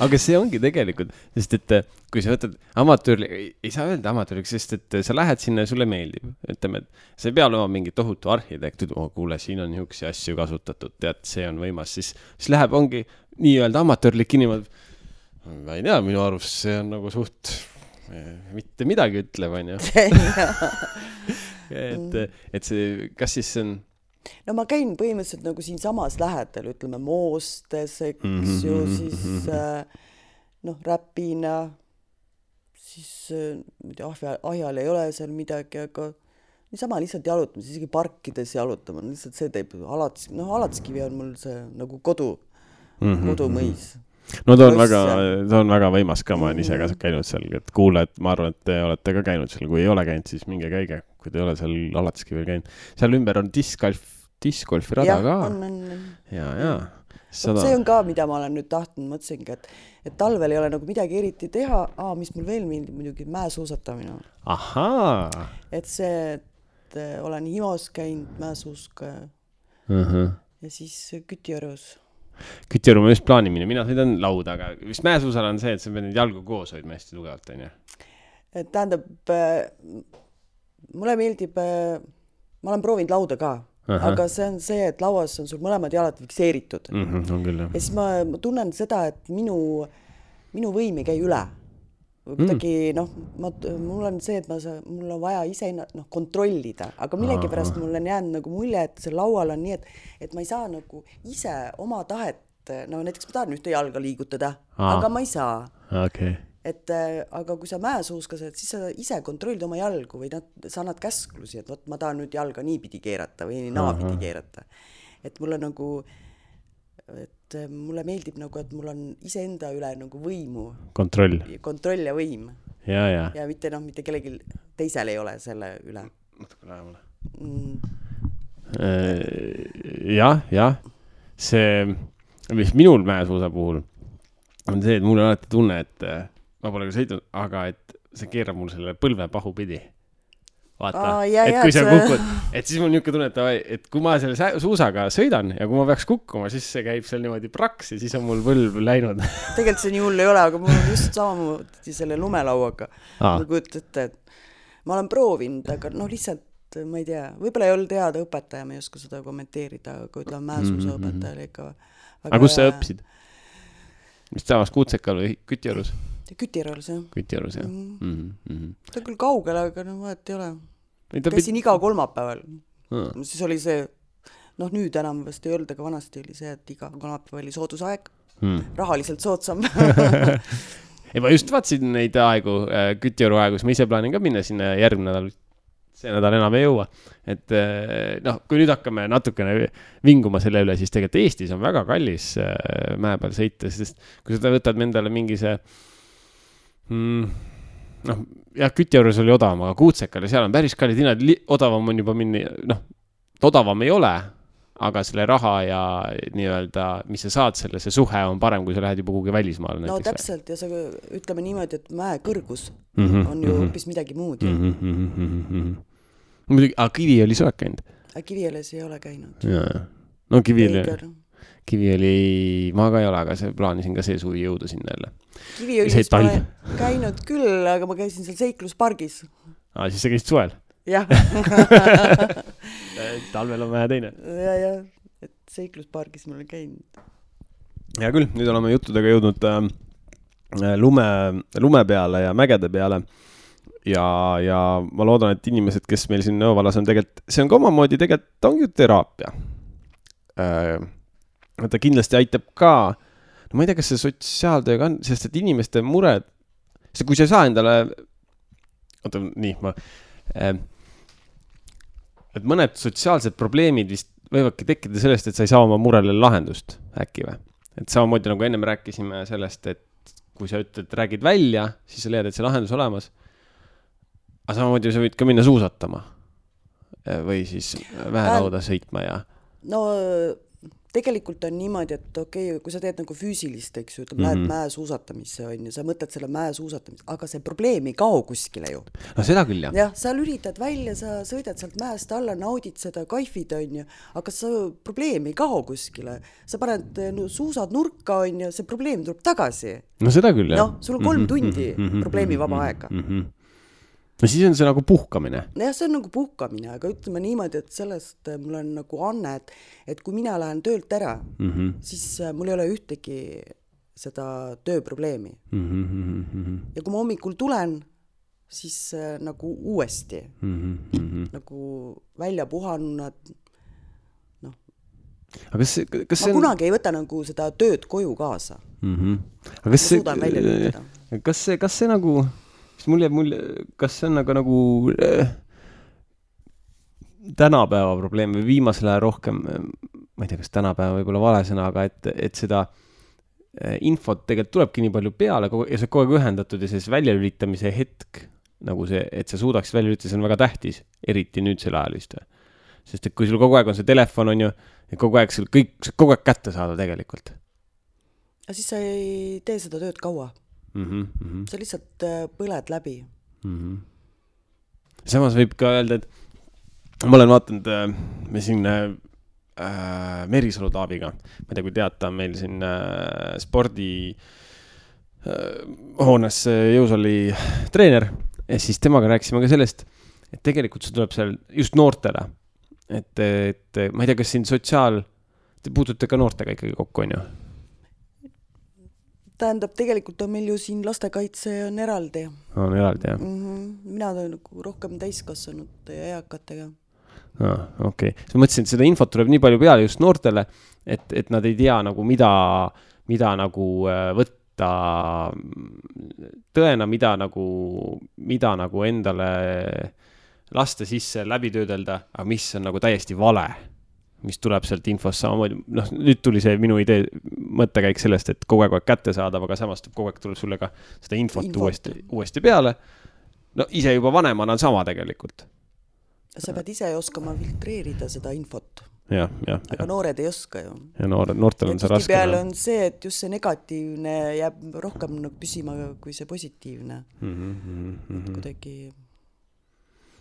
Aga see ongi tegelikult, sest et kui sa võtad amatöörlik, ei saa öelda amatöörlik, sest et sa lähed sinna ja sulle meeldib. Ütleme, et sa ei pea olema mingi tohutu arhitekt, kuule, siin on niisuguseid asju kasutatud, tead, see on võimas, siis läheb, ongi nii-öelda amatöörlik inimene. Ma ei tea, minu arust see on nagu suht mitte midagi ütleb, on ju. et see, kas siis see on... No ma käin põhimõtteliselt nagu siin samas lähedal, ütleme Moostes, eks ju, siis räpina, siis ahjal ei ole seal midagi, aga niisama lihtsalt jalutame, isegi parkides jalutama, lihtsalt see teeb Alatskivi on mul see nagu kodumõis. No ta on väga võimas ka, ma olen ise ka käinud seal, et kuule, et ma arvan, et te olete ka käinud seal, kui ei ole käinud, siis minge käige, kui te ei ole seal Alatskivil käinud. Seal ümber on discgolfi rada ka. Ja. See on ka, mida ma olen nüüd tahtnud, mõtlesingi, et talvel ei ole nagu midagi eriti teha, mis mul veel meeldib muidugi, mäesuusatamine. Ahaa! Et see, et olen Himos käinud mäesuuska ja siis Kütijärus. Kütijäru ma just plaanin minna, mina sõidan lauda, aga vist mäesuusal on see, et sa pead neid jalgu koos hoidma hästi tugevalt, on ju? Tähendab, mulle meeldib, ma olen proovinud lauda ka, aga see on see, et lauas on sul mõlemad jalad fikseeritud. On küll, jah. Ja siis ma tunnen seda, et minu võim ei käi üle. Kuidagi, mul on see, et mul on vaja ise kontrollida, aga millegi pärast mul on jäänud nagu mulje, et see laual on nii, et ma ei saa nagu ise oma tahet, näiteks ma tahan ühte jalga liigutada, aga ma ei saa. Okay. Aga kui sa mäesuuskased, siis sa ise kontrollid oma jalgu või sa annad käsklusi, et ma tahan nüüd jalga niipidi keerata või naapidi keerata. Et mulle nagu... et mulle meeldib nagu, et mul on iseenda üle nagu võimu. Kontroll ja võim. Ja mitte kellegi teisel ei ole selle üle. Natuke lähemale. Jah. See, mis minul mäesuusa puhul on see, et mul on alati tunne, et ma pole ka sõitnud, aga et see keerab mul selle põlve pahupidi. Vaata, et kui sa kukud, et siis mul niisugune tunne, et kui ma selle suusaga sõidan ja kui ma peaks kukkuma, siis see käib seal niimoodi praks ja siis on mul põlv läinud. Tegelikult see nii hull ei ole, aga mul on just samamoodi selle lumelauaga. Ma kujutan, et ma olen proovinud, aga lihtsalt, ma ei tea, võib-olla ei olnud head õpetaja, ma ei oska seda kommenteerida, aga ütleme mäesuusa õpetajale ikka. Aga kus sa õppisid? Mis taas Kuutsekal või Kütijärus? Kütijärus, jah. Kütijärus, jah. Ta on küll kaugel, aga vahet ei ole. Käisin iga kolmapäeval. Siis oli see, nüüd enam vast ei olnud, aga vanasti oli see, et iga kolmapäeval oli soodusaeg. Rahaliselt soodsam. Ma just vaatasin neid aegu, Kütijäru aegu, siis ma ise plaanin ka minna sinna järgmine nädal. See nädal enam ei jõua. Et kui nüüd hakkame natukene vinguma selle üle, siis tegelikult Eestis on väga kallis mäe peal sõita, sest kui sa võtad endale mingi see Kütijärus oli odavam, aga Kuutsekal ja seal on päris kallid hinnad, odavam on juba minni, odavam ei ole, aga selle raha ja nii-öelda, mis sa saad selle, see suhe on parem, kui sa lähed juba kuhugi välismaale. No täpselt, ja sa ütleme niimoodi, et mäe kõrgus on ju hoopis midagi muud. Aga Kiviõli sa oled käinud? Kiviõlis ei ole käinud. No Kiviõli ma ka ei ole, aga plaanisin ka see suvi jõuda sinna jälle. Kiviõlis ma olen käinud küll, aga ma käisin seal seikluspargis. Siis sa käisid suvel? Jah. Talvel on vähe teine. Ja, et seikluspargis ma olen käinud. Ja küll, nüüd oleme juttudega jõudnud lume peale ja mägede peale. Ja ma loodan, et inimesed, kes meil siin Nõovalas on tegelikult, see on ka omamoodi tegelikult ongi teraapia. ta kindlasti aitab ka, no ma ei tea, kas see sotsiaaltööga on, sest et inimeste mured, kui sa ei saa endale, et mõned sotsiaalsed probleemid vist võivadki tekkida sellest, et sa ei saa oma murele lahendust äkki või. Et samamoodi nagu ennem rääkisime sellest, et kui sa ütled, räägid välja, siis sa leiad, et see lahendus olemas. Aga samamoodi sa võid ka minna suusatama või siis väelauda sõitma ja... No tegelikult on niimoodi, et okei, kui sa teed nagu füüsilist, eks ju, lähed mäesuusatamisse on ja sa mõtled selle mäesuusatamisse, aga see probleem ei kao kuskile ju. No seda küll, jah. Jah, sa lülitad välja, sa sõidad sealt mäest alla, naudid seda, kaifid on ju, aga see probleem ei kao kuskile. Sa paned suusad nurka on ja see probleem tuleb tagasi. No seda küll, jah. No, sul on 3 tundi probleemi vaba aega. No siis on see nagu puhkamine. Jah, see on nagu puhkamine, aga ütleme niimoodi, et sellest mul on nagu anne, et kui mina lähen töölt ära, siis mul ei ole ühtegi seda tööprobleemi. Ja kui ma hommikul tulen, siis nagu uuesti, nagu välja puhanuna, noh. Aga kas ma kunagi ei võta nagu seda tööd koju kaasa. Aga suudan välja lülitada. Kas see nagu... kas see on nagu tänapäeva probleem või viimasel ajal rohkem, ma ei tea, kas tänapäeva võib-olla vale sõna, aga et seda infot tegelikult tulebki nii palju peale ja see kogu aeg ühendatud ja see väljalülitamise hetk, nagu see, et sa suudaksid välja lülitada, see on väga tähtis, eriti nüüd selle ajal vist. Sest et kui sul kogu aeg on see telefon, on ju, ja kogu aeg sul kogu aeg kätte saada tegelikult. Ja siis sa ei tee seda tööd kaua. Sa lihtsalt põled läbi. Samas võib ka öelda, et ma olen vaatanud me siin Merisalu Taaviga, ma ei tea, kui teata, meil siin spordi hoones jõusalli treener ja siis temaga rääkisime ka sellest, et tegelikult see tuleb seal just noortele, et ma ei tea, kas siin te puudute ka noortega ikkagi kokku, on ju? Tähendab, tegelikult on meil ju siin lastekaitse on eraldi. On eraldi, jah. Mina olen nagu rohkem täiskasvanud ja eakatega. Okei. Ma mõtlesin, et seda infot tuleb nii palju peale just noortele, et nad ei tea nagu mida nagu võtta tõena, mida nagu endale laste sisse läbi töödelda, aga mis on nagu täiesti vale, mis tuleb sealt infost samamoodi. Noh, nüüd tuli see minu idee mõttekäik sellest, et kogu aeg kätte saada, aga samas kogu aeg tuleb sulle ka seda infot. Uuesti peale. No ise juba vanemana on sama tegelikult. Sa pead ise oskama filtreerida seda infot. Ja. Aga noored ei oska ju. Ja noortel on see raske. Peale on see, et just see negatiivne jääb rohkem püsima kui see positiivne. Kuidagi...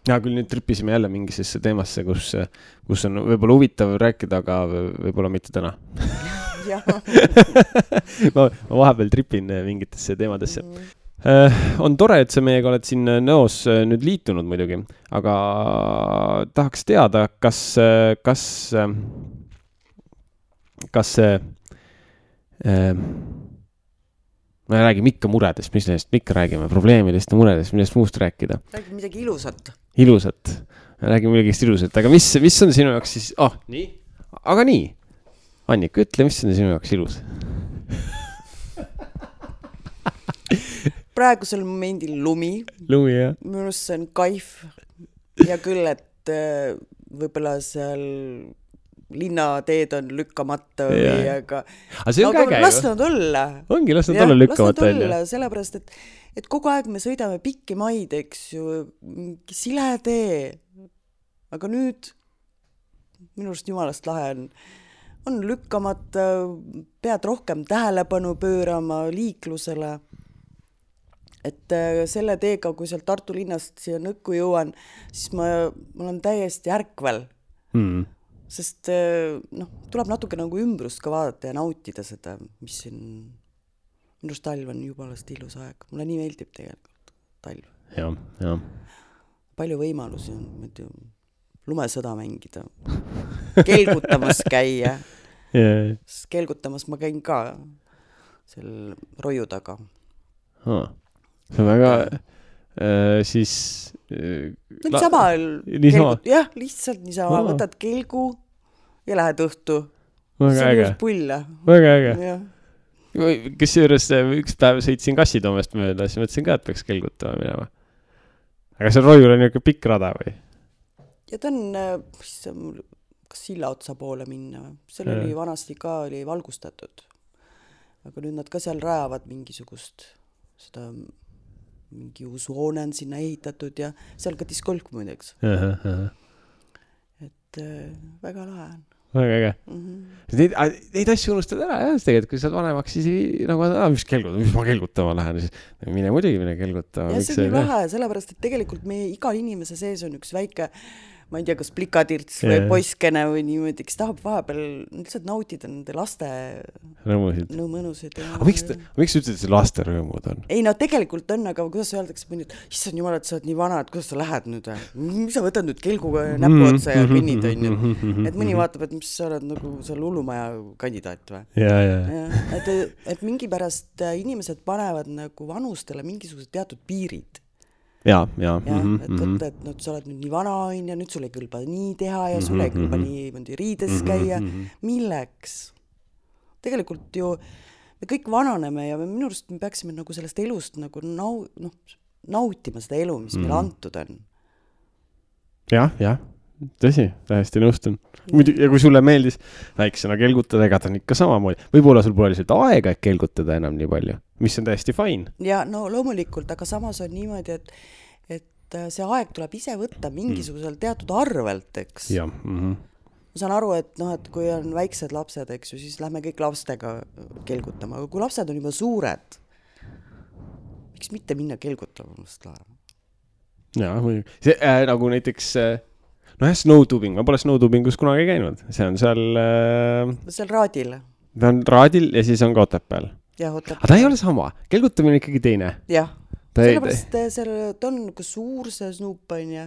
Ja küll nüüd tripisime jälle mingisesse teemasse, kus on võib-olla huvitav rääkida, aga võib-olla mitte täna. ma vahepeal tripin mingitesse teemadesse. On tore, et sa meiega oled siin nõos nüüd liitunud muidugi, aga tahaks teada, kas me räägime ikka muredest, millest me ikka räägime, probleemidest ja muredest, millest muust rääkida. Räägime midagi ilusat. Ilusat. Räägime midagi ilusat, aga mis on sinu jaoks siis... nii. Aga nii. Annika, ütle, mis on sinu jaoks ilus? Praegusel momendil lumi. Lumi, jah. Minu arust see on kaif. Ja küll, et võib-olla seal... linnateed on lükkamata või aga... see on käge ju. Lasnud olla. Ongi lasnud olla lükkamata. Lasnud olla, sellepärast, et kogu aeg me sõidame pikki maid, eks ju, siletee. Aga nüüd minu arust jumalast lahe on lükkamata, pead rohkem tähelepanu pöörama liiklusele. Et selle teega, kui sealt Tartu linnast siia Nõkku jõuan, siis ma olen täiesti ärkvel. Sest tuleb natuke nagu ümbrust ka vaadata ja nautida seda, mis siin minust talv on jubalast ilus aeg. Mulle nii meeldib tegelikult talv. Ja. Palju võimalusi on lumesõda mängida. Kelgutamas käia. Kelgutamas ma käin ka seal roju taga. See on väga siis... Niisama, jah, lihtsalt niisama, võtad kelgu ja lähed õhtu Väga äge. Pull. Väga äge. Kes juures üks päev sõitsin Kassitoomest mööda, siis mõtlesin ka, et peaks kelgutama minema. Aga see Roiul on niisugune pikk rada või? Ja ta on, kas silla otsa poole minna. Seal oli vanasti ka oli valgustatud. Aga nüüd nad ka seal rajavad mingisugust seda mingi usuhoone on sinna ehitatud ja seal ka diskolk muideks. Et väga lahe on. Väga äge. Neid asju unustad ära, jah, tegelikult, kui sa oled vanemaks, siis nagu, mis ma kelgutama lähen, siis mine muidugi mine kelgutama. Ja see on lahe, sellepärast, et tegelikult meie igal inimese sees on üks väike, ma ei tea, kas plikatirts või poiskene või niimoodi, kes tahab vahepeal lihtsalt nautida nende laste mõnusid. Aga miks ütled, et see laste rõõmud on? Ei, no tegelikult on, aga kuidas öeldakse mõni, et issand jumal, et sa oled nii vana, et kuidas sa lähed nüüd? Mis sa võtad nüüd kelguga näpu otsa ja kõnnid, on ju? Et mõni vaatab, et mis sa oled nagu seal hullumaja kandidaat või? Et mingi pärast inimesed panevad nagu vanustele mingisugused teatud piirid. Ja, et võtta, et nüüd sa oled nüüd nii vana on ja nüüd sul ei kõlba nii teha ja sul ei kõlba nii riides käia. Milleks? Tegelikult ju me kõik vananeme ja minu arust me peaksime nagu sellest elust nagu nautima seda elu, mis meile antud on. Jah, tõsi, täiesti nõustun. Ja kui sulle meeldis väiksena kelgutada, ega ta on ikka samamoodi. Võib-olla sul pole lihtsalt aega kelgutada enam nii palju, mis on täiesti fine. Ja no loomulikult, aga samas on niimoodi, et see aeg tuleb ise võtta mingisugusel teatud arvelt, eks. Ja, Ma saan aru, et kui on väiksed lapsed, eks ju, siis lähme kõik lastega kelgutama. Aga kui lapsed on juba suured, miks mitte minna kelgutama? Ja, see, nagu näiteks snowtubing. Ma pole snowtubingus kunagi käinud. See on seal... Seal Raadil. Ta on Raadil ja siis on ka Otepääl. Aga ta ei ole sama. Kelgutamine on ikkagi teine. Jah. Sellepärast seal on nagu suur see snuup on ja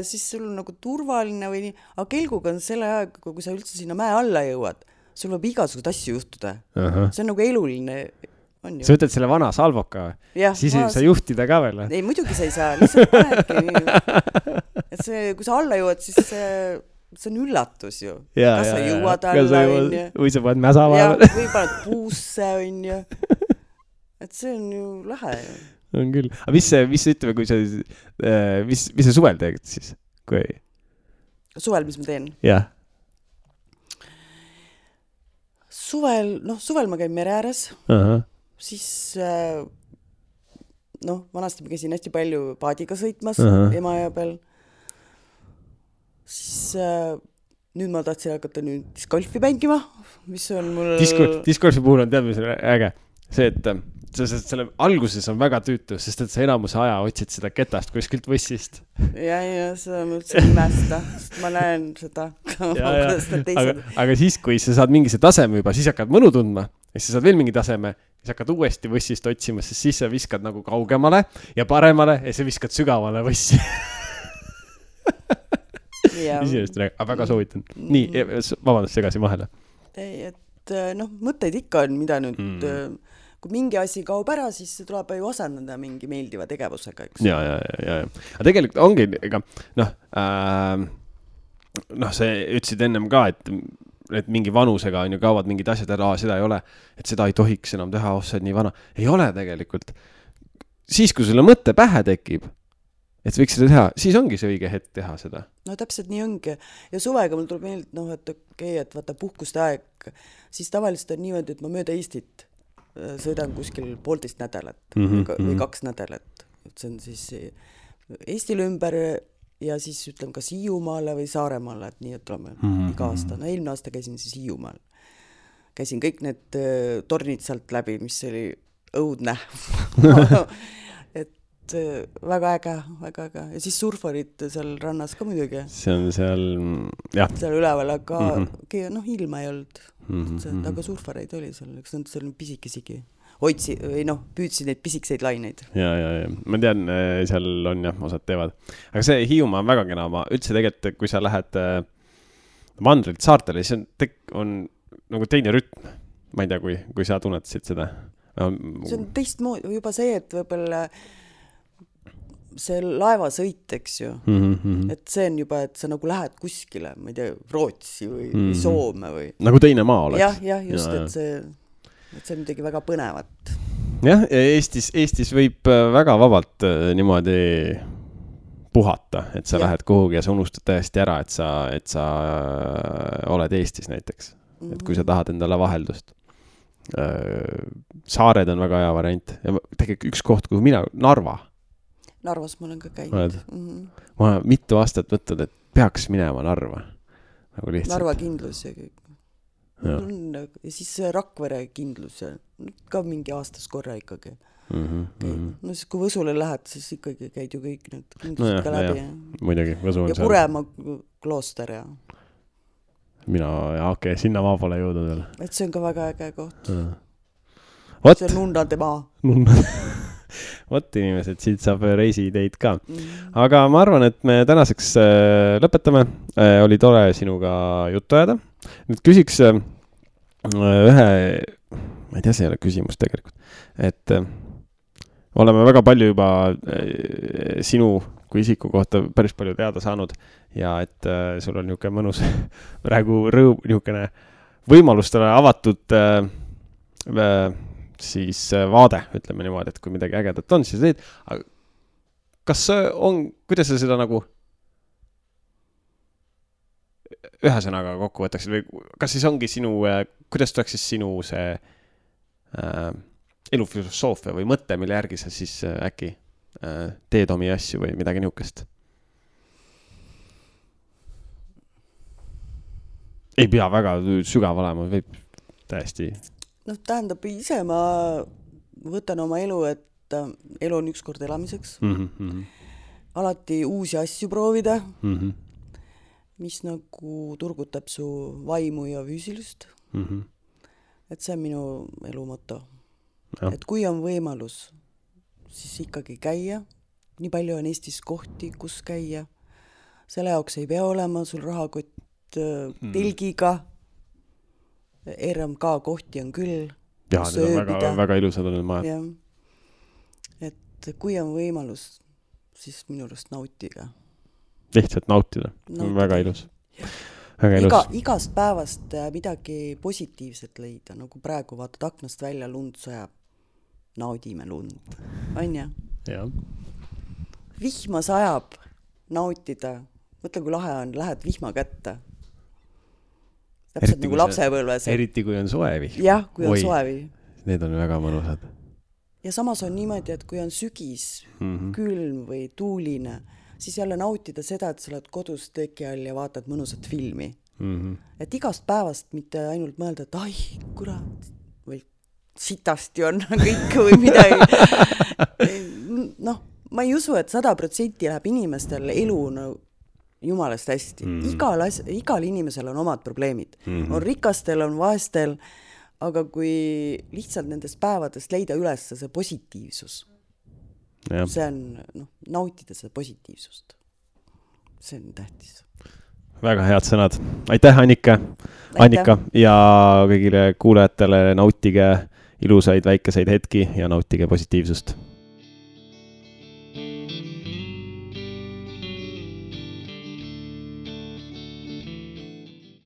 siis sul on nagu turvaline või nii, aga kelguga on selle aeg, kui sa üldse sinna mäe alla jõuad, sul võib igasugused asju juhtuda. See on nagu eluline. Sa võtad selle vana salvoka, siis ei saa juhtida ka veel. Ei, muidugi sa ei saa, lihtsalt panedki. Et see, kui sa alla jõuad, siis see on üllatus ju. Kas sa jõuad alla, on ju. Või sa paned mäsa vahepeal. Või paned puusse, on ju. Et see on ju lahe. On küll. Aga mis ütleme, kui sa, mis sa suvel teed siis? Suvel, mis ma teen? Jah. Suvel ma käin mere ääres. Siis vanasti ma käisin hästi palju paadiga sõitmas Emajõe peal. Siis nüüd ma tahtsin hakata nüüd discgolfi mängima, mis on mul... Discgolfi puhul on tead, mis on äge. See, et selle alguses on väga tüütu, sest et sa enamuse aja otsid seda ketast kuskilt võssist. Ja seda ma üldse imesta, sest ma näen seda. Aga siis, kui sa saad mingise taseme juba, siis hakkad mõnu tundma. Ja siis saad veel mingi taseme, siis hakkad uuesti võssist otsima, sest siis sa viskad nagu kaugemale ja paremale ja sa viskad sügavale võssi. Aga väga soovitan. Nii, vabandust, segasi vahele. Ei, et mõtteid ikka on, mida nüüd... Kui mingi asi kaob ära, siis tuleb ju asendada mingi meeldiva tegevusega, eks? Ja. Aga tegelikult ongi, ega, see ütlesid ennem ka, et mingi vanusega on ju kaovad mingid asjad ära, seda ei ole, et seda ei tohiks enam teha, sa oled nii vana. Ei ole tegelikult. Siis, kui sulle mõtte pähe tekib, et võiks seda teha, siis ongi see õige hetk teha seda. No täpselt nii ongi. Ja suvega mul tuleb meeld, et vaata puhkuste aeg, siis tavaliselt on niimoodi, et ma mööda Eestit sõidan kuskil 1,5 nädalat või 2 nädalat. Et see on siis Eestil ümber ja siis ütlen ka Hiiumaale või Saaremaale, et nii, et oleme iga aasta. Eelmine aasta käisin siis Hiiumaal. Käisin kõik need tornid sealt läbi, mis oli õudne. Et väga äge. Ja siis surfarid seal rannas ka muidugi. See on seal, jah. Seal üleval, aga ilma ei olnud. Aga surfareid oli seal, eks nad seal pisikesigi püüdsid neid pisikseid laineid. Ja. Ma tean, seal on jah, osad teevad. Aga see Hiiumaa on väga kena. Ma üldse tegelikult, kui sa lähed mandrilt saartele, siis on nagu teine rütm. Ma ei tea, kui sa tunnetasid seda. See on teistmoodi juba see, et võib-olla see laevasõit, eks ju, et see on juba, et sa nagu lähed kuskile, ma ei tea, Rootsi või Soome või. Nagu teine maa oleks. Jah, just, et see on midagi väga põnevat. Jah, Eestis võib väga vabalt niimoodi puhata, et sa lähed kuhugi ja sa unustad täiesti ära, et sa oled Eestis näiteks. Et kui sa tahad endale vaheldust. Saared on väga hea variant. Ja tegelikult üks koht, kuhu mina, Narvas ma olen ka käinud. Ma olen mitu aastat võtnud, et peaks minema Narva. Nagu lihtsalt. Narva kindlus ja kõik. Ja siis Rakvere kindlus ja ka mingi aastas korra ikkagi. No siis kui Võsule lähed, siis ikkagi käid ju kõik need kindlused ka läbi. Muidugi, Võsu on ja Kuremaa klooster ja sinna maa pole jõudnud veel. Et see on ka väga äge koht. See on nunnade maa. Vot inimesed, siit saab reisiideid ka. Aga ma arvan, et me tänaseks lõpetame. Oli tore sinuga juttu ajada. Nüüd küsiks ühe, ma ei tea, see ei ole küsimus tegelikult, et oleme väga palju juba sinu kui isiku kohta päris palju teada saanud ja et sul on niisugune mõnus praegu niisugune võimalustele avatud siis vaade, ütleme niimoodi, et kui midagi ägedat on, siis teed. Kas on, kuidas sa seda nagu ühesõnaga kokku võtaksid või kas siis ongi sinu, kuidas tuleks siis sinu see elufilosoofia või mõte, mille järgi sa siis äkki teed omi asju või midagi niukest? Ei pea väga sügav olema, võib täiesti. Tähendab, ise ma võtan oma elu, et elu on ükskord elamiseks. Alati uusi asju proovida, mis nagu turgutab su vaimu ja füüsilist. Et see on minu elu moto. Ja. Et kui on võimalus, siis ikkagi käia. Nii palju on Eestis kohti, kus käia. Selle jaoks ei pea olema sul rahakott telgiga. RMK kohti on küll. Ja, need on väga ilusad on need majad. Ja. Et kui on võimalus, siis minu arust nautige. Lihtsalt nautida. Väga ilus. Väga ilus. Igast päevast midagi positiivset leida, nagu praegu vaatad aknast välja, lund sõjab. Naudime lund. On ja? Ja. Vihma sajab, nautida. Mõtle, kui lahe on, lähed vihma kätte. Täpselt nagu lapsepõlves. Eriti kui on soe vihm. Jah, kui on soe vihm. Need on väga mõnusad. Ja samas on niimoodi, et kui on sügis, külm või tuuline, siis jälle nautida seda, et sa oled kodus teki all ja vaatad mõnusat filmi. Et igast päevast mitte ainult mõelda, et ai, kurat, või sitasti on kõik või midagi. Ma ei usu, et 100% läheb inimestel elu jumalast hästi. Igal inimesel on omad probleemid. On rikastel, on vaestel, aga kui lihtsalt nendest päevadest leida üles see positiivsus, see on, nautida seda positiivsust. See on tähtis. Väga head sõnad. Aitäh, Annika ja kõigile kuulajatele nautige ilusaid väikeseid hetki ja nautige positiivsust.